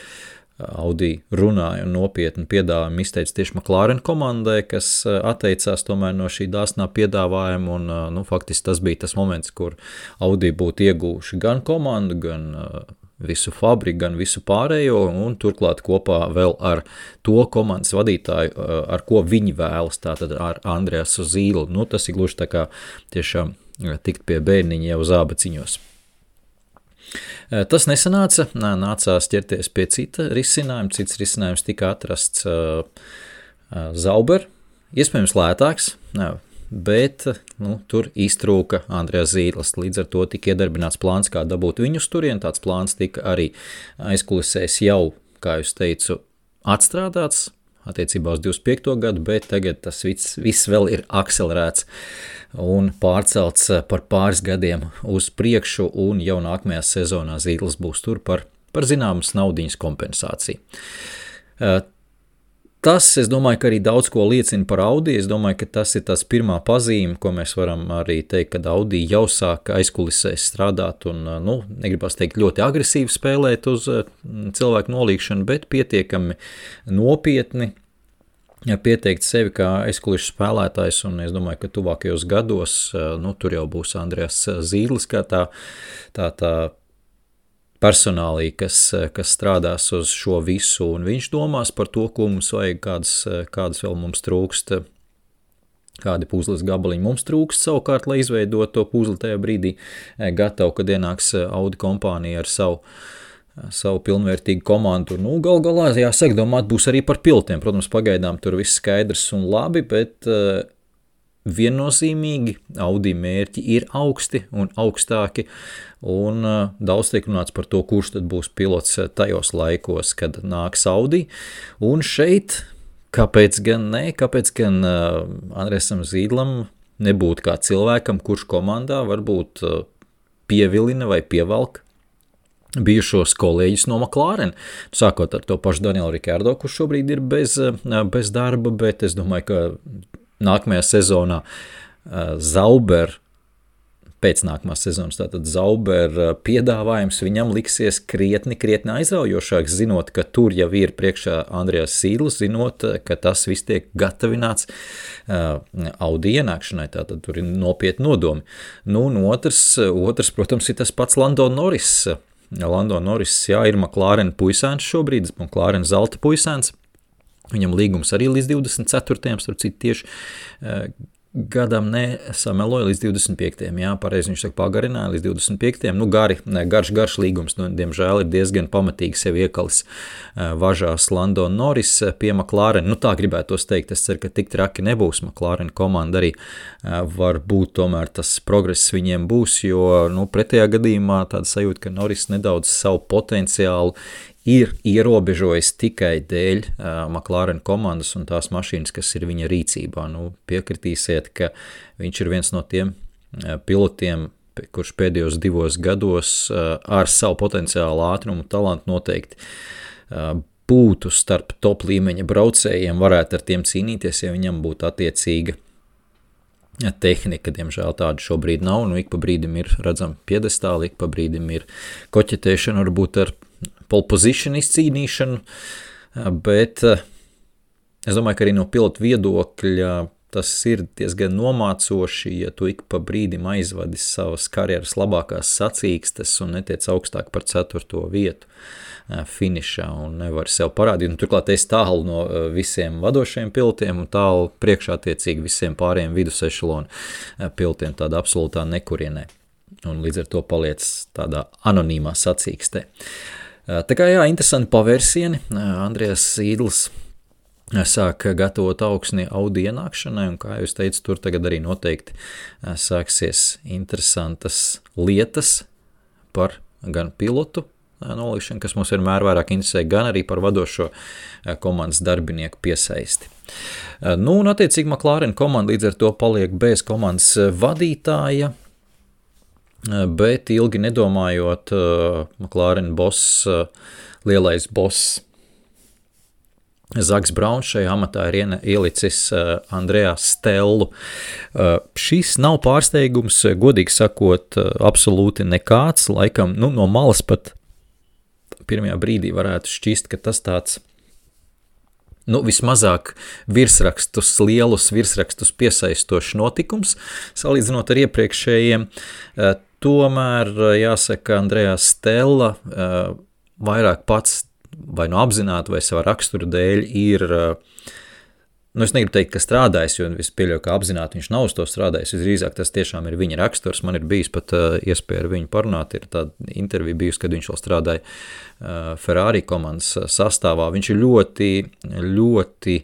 Audi runāja un nopietni piedāvājumu izteica tieši McLaren komandai, kas atteicās tomēr no šī dāsnā piedāvājuma, un faktiski tas bija tas moments, kur Audi būtu iegūši gan komandu, gan visu fabriku, gan visu pārējo, un turklāt kopā vēl ar to komandas vadītāju, ar ko viņi vēlas, tātad ar Andrijasu Zīdlu. Tas ir gluži tā kā tiešām tikt pie bērniņa jau zābaciņos. Tas nesanāca, nācās ķerties pie cita risinājuma, cits risinājums tika atrasts Zauber, iespējams lētāks, bet tur iztrūka Andrijas Zīdls. Līdz ar to tika iedarbināts plāns, kā dabūt viņu uz turieni. Tāds plāns tika arī aizkulisēs jau, kā jūs teicu, atstrādāts attiecībā uz 25. gadu, bet tagad tas viss vēl ir akcelerēts un pārcelts par pāris gadiem uz priekšu, un jau nākamajā sezonā Zīdls būs tur par zināmas naudiņas kompensāciju. Tas, es domāju, ka arī daudz ko liecina par Audi. Es domāju, ka tas ir tās pirmā pazīme, ko mēs varam arī teikt, kad Audi jau sāka aizkulisēs strādāt un, negribas teikt, ļoti agresīvi spēlēt uz cilvēku nolīgšanu, bet pietiekami nopietni pieteikt sevi kā aizkulišu spēlētājs, un es domāju, ka tuvākajos gados, tur jau būs Andrijas Zīdls kā tā personālī, kas strādās uz šo visu, un viņš domās par to, ko mums vajag, kādas vēl mums trūkst, kādi puzles gabaliņi mums trūkst savukārt, lai izveidot to puzli tajā brīdī gatavu, kad ienāks Audi kompānija ar savu pilnvērtīgu komandu. Gal galā, jāsaka, domāt būs arī par pilotiem. Protams, pagaidām tur viss skaidrs un labi, bet viennozīmīgi Audi mērķi ir augsti un augstāki, un daudz tiek runāts par to, kurš tad būs pilots tajos laikos, kad nāks Audi. Un šeit, kāpēc gan Andrejam Zīdlam nebūtu kā cilvēkam, kurš komandā varbūt pievilina vai pievelk bijušos kolēģis no McLaren, sākot ar to pašu Danielu Rikardo, kurš šobrīd ir bez darba, bet es domāju, ka nākamajā sezonā pēc nākamās sezonas, tātad Zauber piedāvājums viņam liksies krietni aizraujošāks, zinot, ka tur jau ir priekšā Andrijas Zīdls, zinot, ka tas viss tiek gatavināts Audi ienākšanai, tātad tur ir nopietni nodomi. Un otrs, protams, ir tas pats Lando Norris. Lando Norris, ir McLaren puisēns šobrīd, McLaren zelta puisēns. Viņam līgums arī līdz 24. starp citu tieši gadam nesameloja līdz 25. Pareizi viņš saka pagarināja līdz 25. Garš līgums, diemžēl ir diezgan pamatīgi sevi iekalis važās Lando Norris pie McLaren. Tā gribētos teikt, es ceru, ka tik traki nebūs. McLaren komanda arī varbūt tomēr tas progress viņiem būs, jo pretējā gadījumā tāda sajūta, ka Norris nedaudz savu potenciālu ir ierobežojis tikai dēļ McLaren komandas un tās mašīnas, kas ir viņa rīcībā. Piekritīsiet, ka viņš ir viens no tiem pilotiem, kurš pēdējos 2 gados ar savu potenciālu ātrumu talantu noteikti būtu starp top līmeņa braucējiem, varētu ar tiem cīnīties, ja viņam būtu attiecīga tehnika. Diemžēl tāda šobrīd nav, ik pa brīdim ir redzama piedestāli, ik pa brīdim ir koķetēšana, varbūt ar pole position izcīnīšanu, bet es domāju, ka arī no pilota viedokļa tas ir diezgan nomācoši, ja tu ik pa brīdim aizvadi savas karjeras labākās sacīkstes un netiec augstāk par 4. vietu finišā un nevar sev parādīt. Turklāt es tālu no visiem vadošajiem pilotiem un tālu priekšā attiecīgi visiem pārējiem vidusešalonu pilotiem tādā absolūtā nekurienē. Un līdz ar to paliec tādā anonīmā sacīkstē. Tā kā interesanti pavērsieni. Andrijas Zīdls sāk gatavot augsni Audi ienākšanai, un kā jūs teicu, tur tagad arī noteikti sāksies interesantas lietas par gan pilotu nolikšanu, kas mums vienmēr vairāk interesē, gan arī par vadošo komandas darbinieku piesaisti. Nu, un attiecīgi McLaren komanda līdz ar to paliek bez komandas vadītāja, bet ilgi nedomājot, McLaren boss, lielais boss Zaks Brauns šajā amatā ir ielicis Andrejā Stellu. Šis nav pārsteigums, godīgi sakot, absolūti nekāds, laikam, no malas pat pirmajā brīdī varētu šķist, ka tas tāds, vismazāk lielus virsrakstus piesaistošs notikums, salīdzinot ar iepriekšējiem. Tomēr, jāsaka, Andrejā Stella vairāk pats vai apzināti vai savā rakstura dēļ ir, es negribu teikt, ka strādājis, jo es pieļauju, ka apzināti viņš nav uz to strādājis, visdrīzāk tas tiešām ir viņa raksturs, man ir bijis pat iespēja ar viņu parunāt, ir tāda intervija bijusi, kad viņš vēl strādāja Ferrari komandas sastāvā, viņš ir ļoti,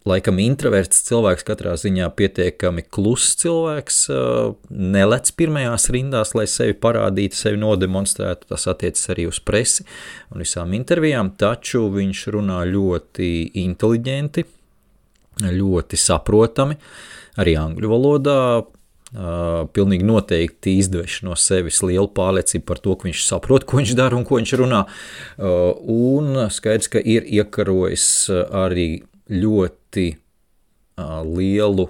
laikam introverts cilvēks, katrā ziņā pietiekami kluss cilvēks, nelec pirmajās rindās, lai sevi parādītu, sevi nodemonstrētu, tas attiecas arī uz presi un visām intervijām, taču viņš runā ļoti inteliģenti, ļoti saprotami, arī angļu valodā, pilnīgi noteikti izdveš no sevis lielu pārliecību par to, ka viņš saprot, ko viņš dara un ko viņš runā, un skaidrs, ka ir iekarojis arī ļoti lielu,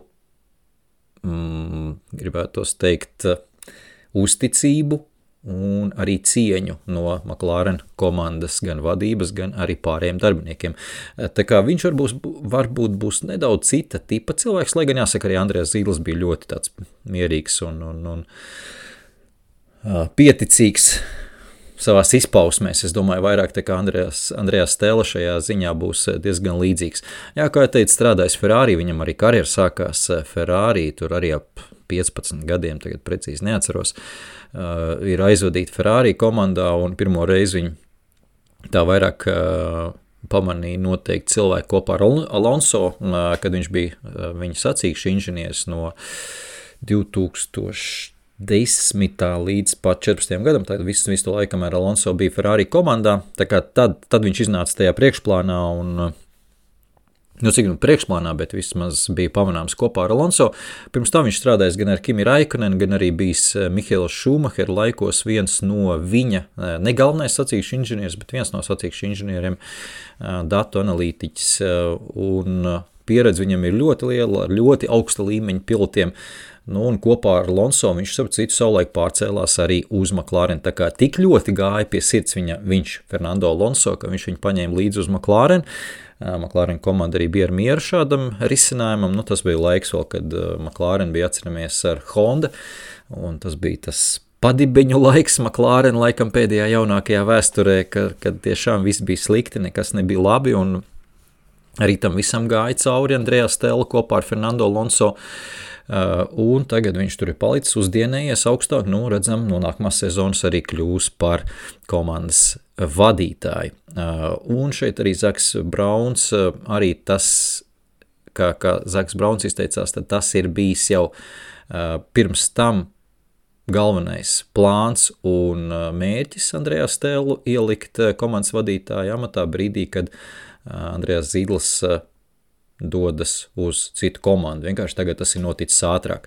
gribētos teikt, uzticību un arī cieņu no McLaren komandas gan vadības, gan arī pārējiem darbiniekiem. Tā kā viņš varbūt būs nedaudz cita tipa cilvēks, lai gan jāsaka, arī Andrejs Zīdls bija ļoti tāds mierīgs un pieticīgs savās izpausmēs. Es domāju, vairāk tā kā Andrejs Stella šajā ziņā būs diezgan līdzīgs. Jā, kā jau teicu, strādājis Ferrari, viņam arī karjera sākās Ferrari, tur arī ap 15 gadiem, tagad precīzi neatceros, ir aizvadīti Ferrari komandā, un pirmo reizi viņi tā vairāk pamanīja noteikti cilvēku kopā ar Alonso, kad viņš bija viņa sacīkšu inženieris no 2010. Līdz pat 14. gadam, tad visu to laiku, kamēr Alonso bija Ferrari komandā, tā kā tad viņš iznāca tajā priekšplānā un, cik priekšplānā, bet vismaz bija pamanāms kopā ar Alonso. Pirms tam viņš strādājis gan ar Kimi Raikkonen, gan arī bijis Mihaela Šumahera laikos viens no viņa, ne galvenais sacīkšu inženieris, bet viens no sacīkšu inženieriem, datu analītiķis, un pieredze viņam ir ļoti liela, ar ļoti augsta līmeņa pilotiem. Un kopā ar Alonso viņš savulaik pārcēlās arī uz McLaren. Tā kā tik ļoti gāja pie sirds viņš Fernando Alonso, ka viņš viņu paņēma līdzi uz McLaren. McLaren komanda arī bija ar mieru šādam risinājumam. Tas bija laiks vēl, kad McLaren bija atceramies ar Honda, un tas bija tas padibeņu laiks McLaren laikam pēdējā jaunākajā vēsturē, kad tiešām viss bija slikti, nekas nebija labi, un arī tam visam gāja cauri Andrejā Stella kopā ar Fernando Alonso. Un tagad viņš tur ir palicis uzdienējies augstāk, redzam, no nākamās sezonas arī kļūs par komandas vadītāju. Un šeit arī Zaks Brauns, arī tas, kā Zaks Brauns izteicās, tad tas ir bijis jau pirms tam galvenais plāns un mērķis Andrejā Stellu ielikt komandas vadītāju amatā brīdī, kad Andrejs Zīdls dodas uz citu komandu. Vienkārši tagad tas ir noticis ātrāk.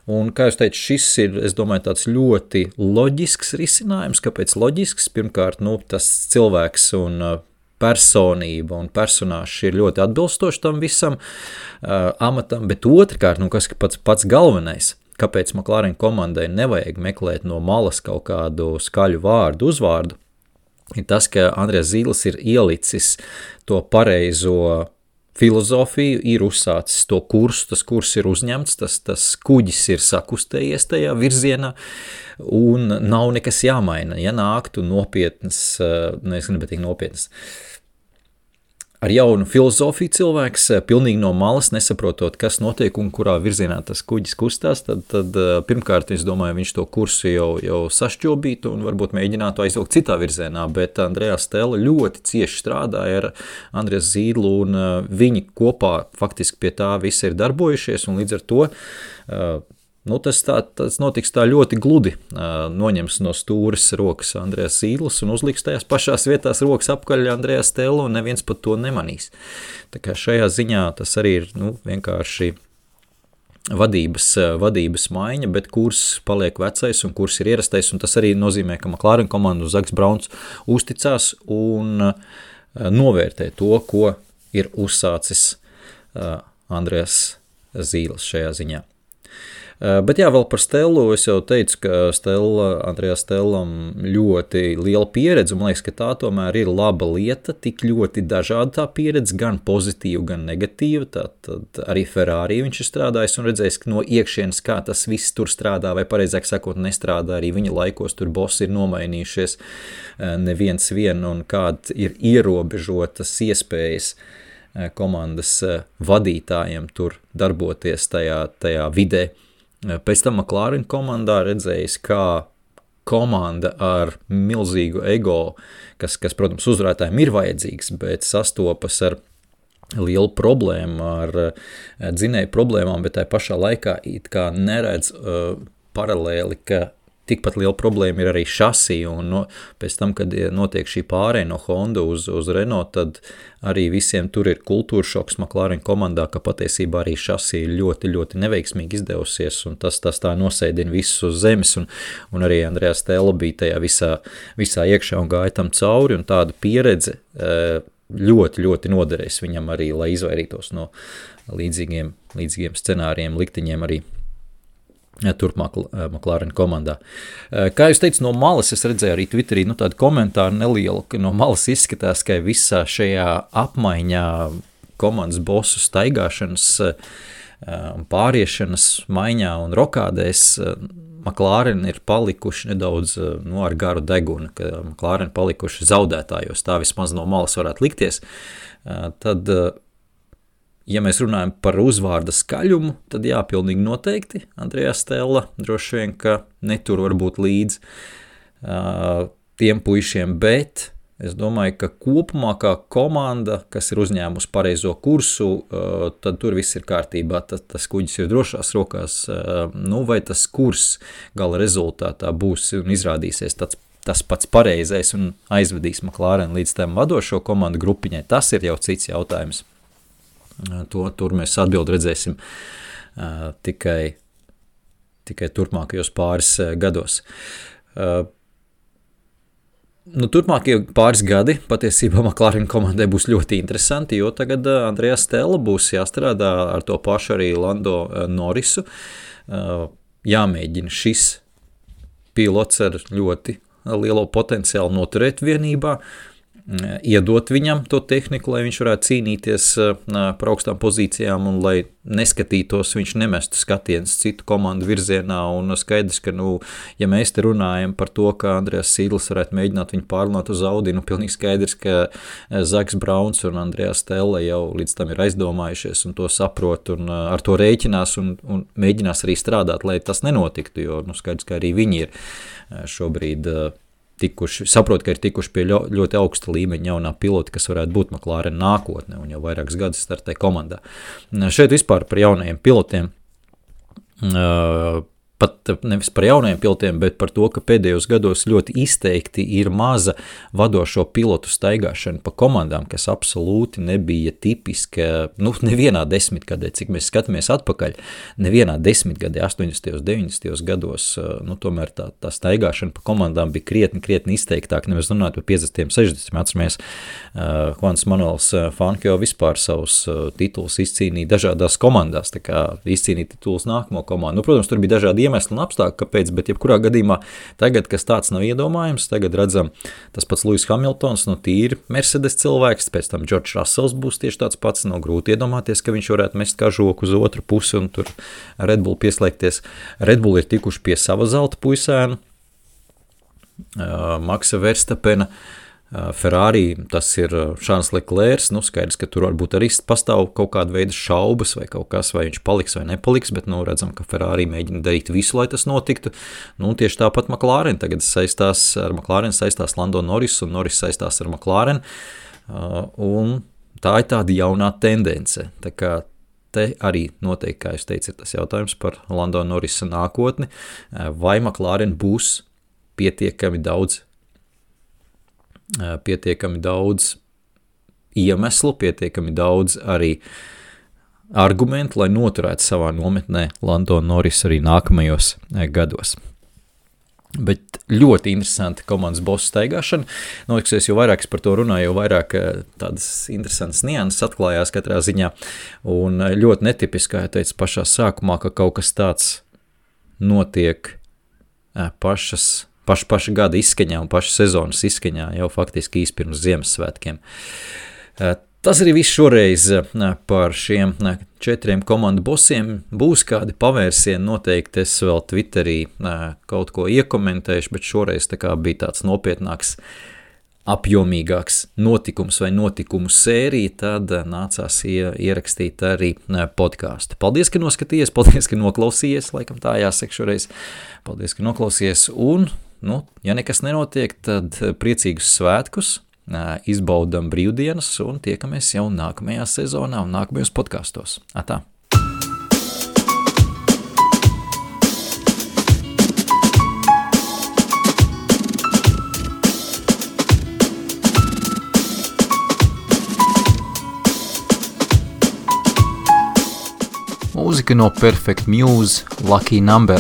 Un, kā jūs teicu, šis ir, es domāju, tāds ļoti loģisks risinājums. Kāpēc loģisks? Pirmkārt, tas cilvēks un personība un personāžs ir ļoti atbilstoši tam visam amatam, bet otrkārt, kas pats galvenais, kāpēc McLaren komandai nevajag meklēt no malas kaut kādu skaļu vārdu, uzvārdu, ir tas, ka Andrejs Zīdls ir ielicis to pareizo filozofiju, ir uzsācis to kursu, tas kurs ir uzņemts, tas kuģis ir sakustējies tajā virzienā, un nav nekas jāmaina. Ja nāktu nopietnas, es gribu teikt nopietnas, ar jaunu filozofiju cilvēks, pilnīgi no malas, nesaprotot, kas notiek un kurā virzienā tas kuģis kustās, tad pirmkārt, es domāju, viņš to kursu jau sašķobītu un varbūt mēģinātu aizvilkt citā virzienā, bet Andrejas Stella ļoti cieši strādāja ar Andrejas Zīdlu un viņi kopā faktiski pie tā visi ir darbojušies un līdz ar to tas notiks tā ļoti gludi, noņems no stūres rokas Andrejas Zīdlis un uzliks tajās pašās vietās rokas apkaļ Andrejas Stellu un neviens pat to nemanīs. Tā kā šajā ziņā tas arī ir vienkārši vadības maiņa, bet kurs paliek vecais un kurs ir ierastais, un tas arī nozīmē, ka McLaren komandu Zaks Brauns uzticās un novērtē to, ko ir uzsācis Andrejas Zīdlis šajā ziņā. Bet jā, vēl par Stellu, es jau teicu, ka Andrejas Stellam ļoti liela pieredze, un man liekas, ka tā tomēr ir laba lieta, tik ļoti dažāda tā pieredze, gan pozitīva, gan negatīva, tad arī Ferrari viņš ir strādājis un redzējis, ka no iekšienes, kā tas viss tur strādā, vai pareizāk sakot, nestrādā, arī viņa laikos tur bossi ir nomainījušies neviens vien, un kāda ir ierobežotas iespējas komandas vadītājiem tur darboties tajā vidē. Pēc tam McLaren komandā redzējis, kā komanda ar milzīgu ego, kas protams, uzvarētājiem ir vajadzīgs, bet sastopas ar lielu problēmu, ar dzinēju problēmām, bet tai pašā laikā it kā neredz paralēli, ka tikpat liela problēma ir arī šasī, un pēc tam, kad notiek šī pārēja no Honda uz Renault, tad arī visiem tur ir kultūra šoks McLaren komandā, ka patiesībā arī šasī ir ļoti, ļoti neveiksmīgi izdevusies, un tas tā nosēdina visus uz zemes, un arī Andrejas Stella bija tajā visā iekšā un gāja tam cauri, un tāda pieredze ļoti, ļoti noderēs viņam arī, lai izvairītos no līdzīgiem scenārijiem, likteņiem arī turpmāk McLaren komandā. Kā jūs teicu, no malas es redzēju arī Twitterī tādu komentāru nelielu, ka no malas izskatās, ka visā šajā apmaiņā komandas bosu staigāšanas, pāriešanas maiņā un rokādēs McLaren ir palikuši nedaudz ar garu degunu, ka McLaren palikuši zaudētājos, tā vismaz no malas varētu likties. Tad ja mēs runājam par uzvārda skaļumu, tad jā, pilnīgi noteikti Andrejas Stella droši vien, ka netur varbūt līdz tiem puišiem, bet es domāju, ka kopumā kā komanda, kas ir uzņēmusi pareizo kursu, tad tur viss ir kārtībā, tas kuģis ir drošās rokās, vai tas kurs gala rezultātā būs un izrādīsies tas pats pareizais un aizvedīs McLaren līdz tam vadošo komandu grupiņai, tas ir jau cits jautājums. Tur mēs atbildi redzēsim tikai turpmākajos pāris gados. Turpmākie pāris gadi patiesībā McLaren komandai būs ļoti interesanti, jo tagad Andrejas Stella būs jāstrādā ar to pašu arī Lando Norrisu. Jāmēģina šis pilots ar ļoti lielo potenciālu noturēt vienībā, iedot viņam to tehniku, lai viņš varētu cīnīties par augstām pozīcijām un lai neskatītos, viņš nemestu skatienus citu komandu virzienā, un skaidrs, ka, ja mēs te runājam par to, ka Andrejas Zīdlis varētu mēģināt viņu pārlunāt uz Audi, pilnīgi skaidrs, ka Zaks Brauns un Andrejas Stella jau līdz tam ir aizdomājušies un to saprot un ar to rēķinās un mēģinās arī strādāt, lai tas nenotiktu, jo skaidrs, ka arī viņi ir šobrīd saprot, ka ir tikuši pie ļoti augsta līmeņa jaunā pilota, kas varētu būt McLaren nākotne un jau vairākas gadus startē komandā. Šeit vispār par jaunajiem pilotiem, pat nevis par jaunajiem pilotiem, bet par to, ka pēdējos gados ļoti izteikti ir maza vadošo pilotu staigāšana pa komandām, kas absolūti nebija tipiska, nevienā desmitgadē, cik mēs skatāmies atpakaļ, nevienā desmitgadē, 80. 90. gados, tomēr tā staigāšana pa komandām bija krietni izteiktāk, nevis runāt par 50. 60. Atceramies, Juans Manuels Fangio vispār savus titulus izcīnīja dažādās komandās, tā kā izcīnīja titulus nākamo komandu. Protams, tur bija dažādi iemesli un apstākļi, kāpēc, bet jebkurā gadījumā tagad, kas tāds nav iedomājams, tagad redzam tas pats Lewis Hamiltons, tīri Mercedes cilvēks, pēc tam George Russells būs tieši tāds pats, grūti iedomāties, ka viņš varētu mest kažoku uz otru pusi un tur Red Bull pieslēgties. Red Bull ir tikuši pie sava zelta puisēna, Maksa Verstapena, Ferrari, tas ir Charles Leclerc, skaidrs, ka tur varbūt arī pastāv kaut kāda veida šaubas vai kaut kas, vai viņš paliks vai nepaliks, bet, redzam, ka Ferrari mēģina darīt visu, lai tas notiktu. Tieši tāpat McLaren tagad saistās Lando Norris, un Norris saistās ar McLaren, un tā ir tāda jaunā tendence. Tā kā te arī noteikti, kā jūs teicat, ir tas jautājums par Lando Norrisa nākotni, vai McLaren būs pietiekami daudz iemeslu, pietiekami daudz arī argumentu, lai noturētu savā nometnē Lando Norris arī nākamajos gados. Bet ļoti interesanti komandas bosu staigāšana. Noliksies, jo vairāk es par to runāju, jo vairāk tādas interesantas nianses atklājās katrā ziņā. Un ļoti netipiski, kā jau teicu pašā sākumā, ka kaut kas tāds notiek paša gada izskaņā un paša sezonas izskaņā jau faktiski īsti pirms Ziemassvētkiem. Tas arī viss šoreiz par šiem 4 komandu bosiem. Būs kādi pavērsieni, noteikti es vēl Twitterī kaut ko iekomentēšu, bet šoreiz tā kā bija tāds nopietnāks, apjomīgāks notikums vai notikumu sērija, tad nācās ierakstīt arī podcastu. Paldies, ka noskatījies, paldies, ka noklausījies, laikam tā jāsaka šoreiz. Paldies, ka noklausījies, un, ja nekas nenotiek, tad priecīgus svētkus, izbaudam brīvdienas un tiekamies jau nākamajā sezonā un nākamajos podkastos. Atā! Mūzika no Perfect Muse, Lucky Number.